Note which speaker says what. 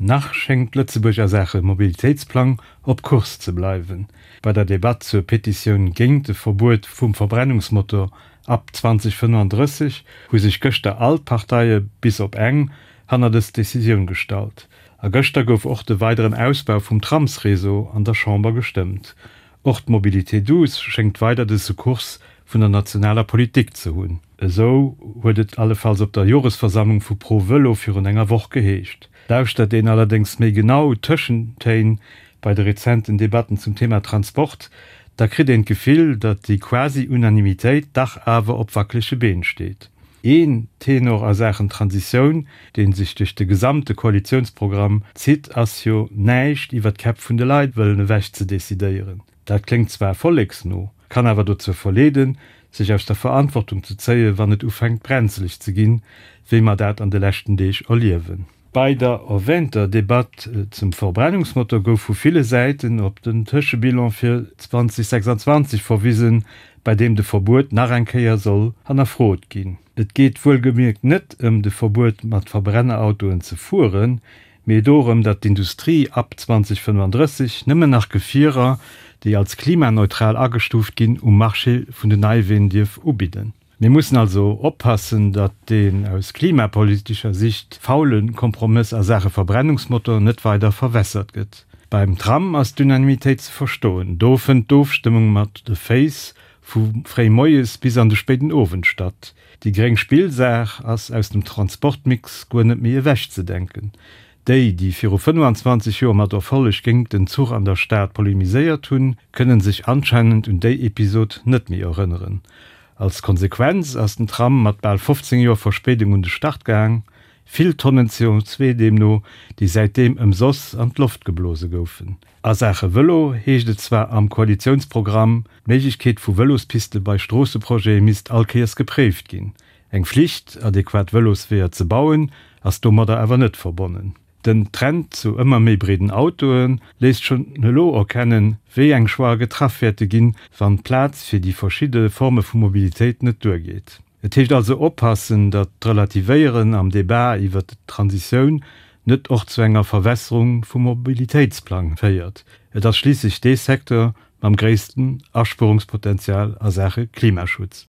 Speaker 1: Nach schéngt Lëtzebuerg a Saache Mobilitéitsplang op Kurs ze bleiwen. Bei der Debatt zur Petitioun géint de Verbuet vum Verbrennungsmotor ab 2035 hu sech gëschter all d'Parteie bis op eng hanner dës Decisioun gestallt. A gëschter gouf och de weideren Ausbau vum Tramsreseau an der Chamber gestëmmt. Och d'Mobilité douce schéngt weider de Secours vun der nationaler Politik ze hunn. Esou huet et allefalls op der Joresversammlung vu Pro Vëlo virun enger Woch geheescht. Lauschtert een allerdéngs méi genau d'Tëschentéin bei de rezenten Debatten zum Thema Transport, da kritt een d'Gefill, datt déi Quasi-Unanimitéit dach awer op wackelege Been steet. Een Tenor a Saachen Transitioun, dee sech duerch de gesamte Koalitiounsprogramm zitt, ass jo, näischt iwwer d'Käpp vun de Leit wëllen ewech ze decidéieren. Dat kléngt zwar volleksno, kann awer dozou verleeden, sech aus der Verantwortung ze zéien, wann et ufänkt brenzeleg ze ginn, wéi mer dat an de leschten Deeg erliewen. Bei der erwähnter Debatt zum Verbrennungsmotor gouf vu ville Säiten op den Tëschebilan fir 2026 verwisen, bei deem de Verbuet nach eng Kéier soll hannerfrot ginn. Et geet wuelgemierkt net ëm de Verbuet mat Verbrennerautoen ze fueren, mee dorëm, datt d'Industrie ab 2035 nëmmen nach Gefierer, déi als klimaneutral agestuuft ginn, um Marché vun den Neiween dierf ubidden. Mir mussen also oppassen, datt deen aus klimapolitescher Sicht faule Kompromëss a Saache Verbrennungsmotor net weider verwässert gëtt. Beim Tram ass d'Unanimitéit ze verstoen. Do fënnt d'Ofstëmmung mat de Féiss vu fréi moies bis an de spéiden Owend statt. Déi gréng Spillsaach ass aus dem Transportmix guer net méi ewechzedenken. Déi, déi viru 25 Joer mat Erfolleg géingt den Zuch an der Stad polemiséiert hunn, kënnen sech anscheinend un déi Episod net méi erënneren. Als Konsequenz ass den Tram mat bal 15 Joer Verspéidung un de Start gaang, vill Tonnen CO2 deemno, déi säitdeem ëmsoss an d'Loft geblose goufen. A Saache Vëlo heescht et zwar am Koalitiounsprogramm, d'Méiglechkeet vu Vëlospiste bei Stroosseprojete misst all Kéiers gepréift ginn. Eng Flicht, adequat Vëlosweeër ze bauen, ass domadder awer net verbonnen. Den Trend zu ëmmer méi breeden Autoe léisst schonn elo erkennen, wéi eng Choixë getraff wäerte ginn, wann d'Plaz fir déi verschidde Forme vu Mobilitéit net duergeet. Et heescht also oppassen, datt d'Relativéieren am Debat iwwert d'Transitioun net och zu enger Verwässerung vum Mobilitéitsplang féiert. Et ass schliisslech dee Secteur mam gréissten Aspuerungspotenzial a Saache Klimaschutz.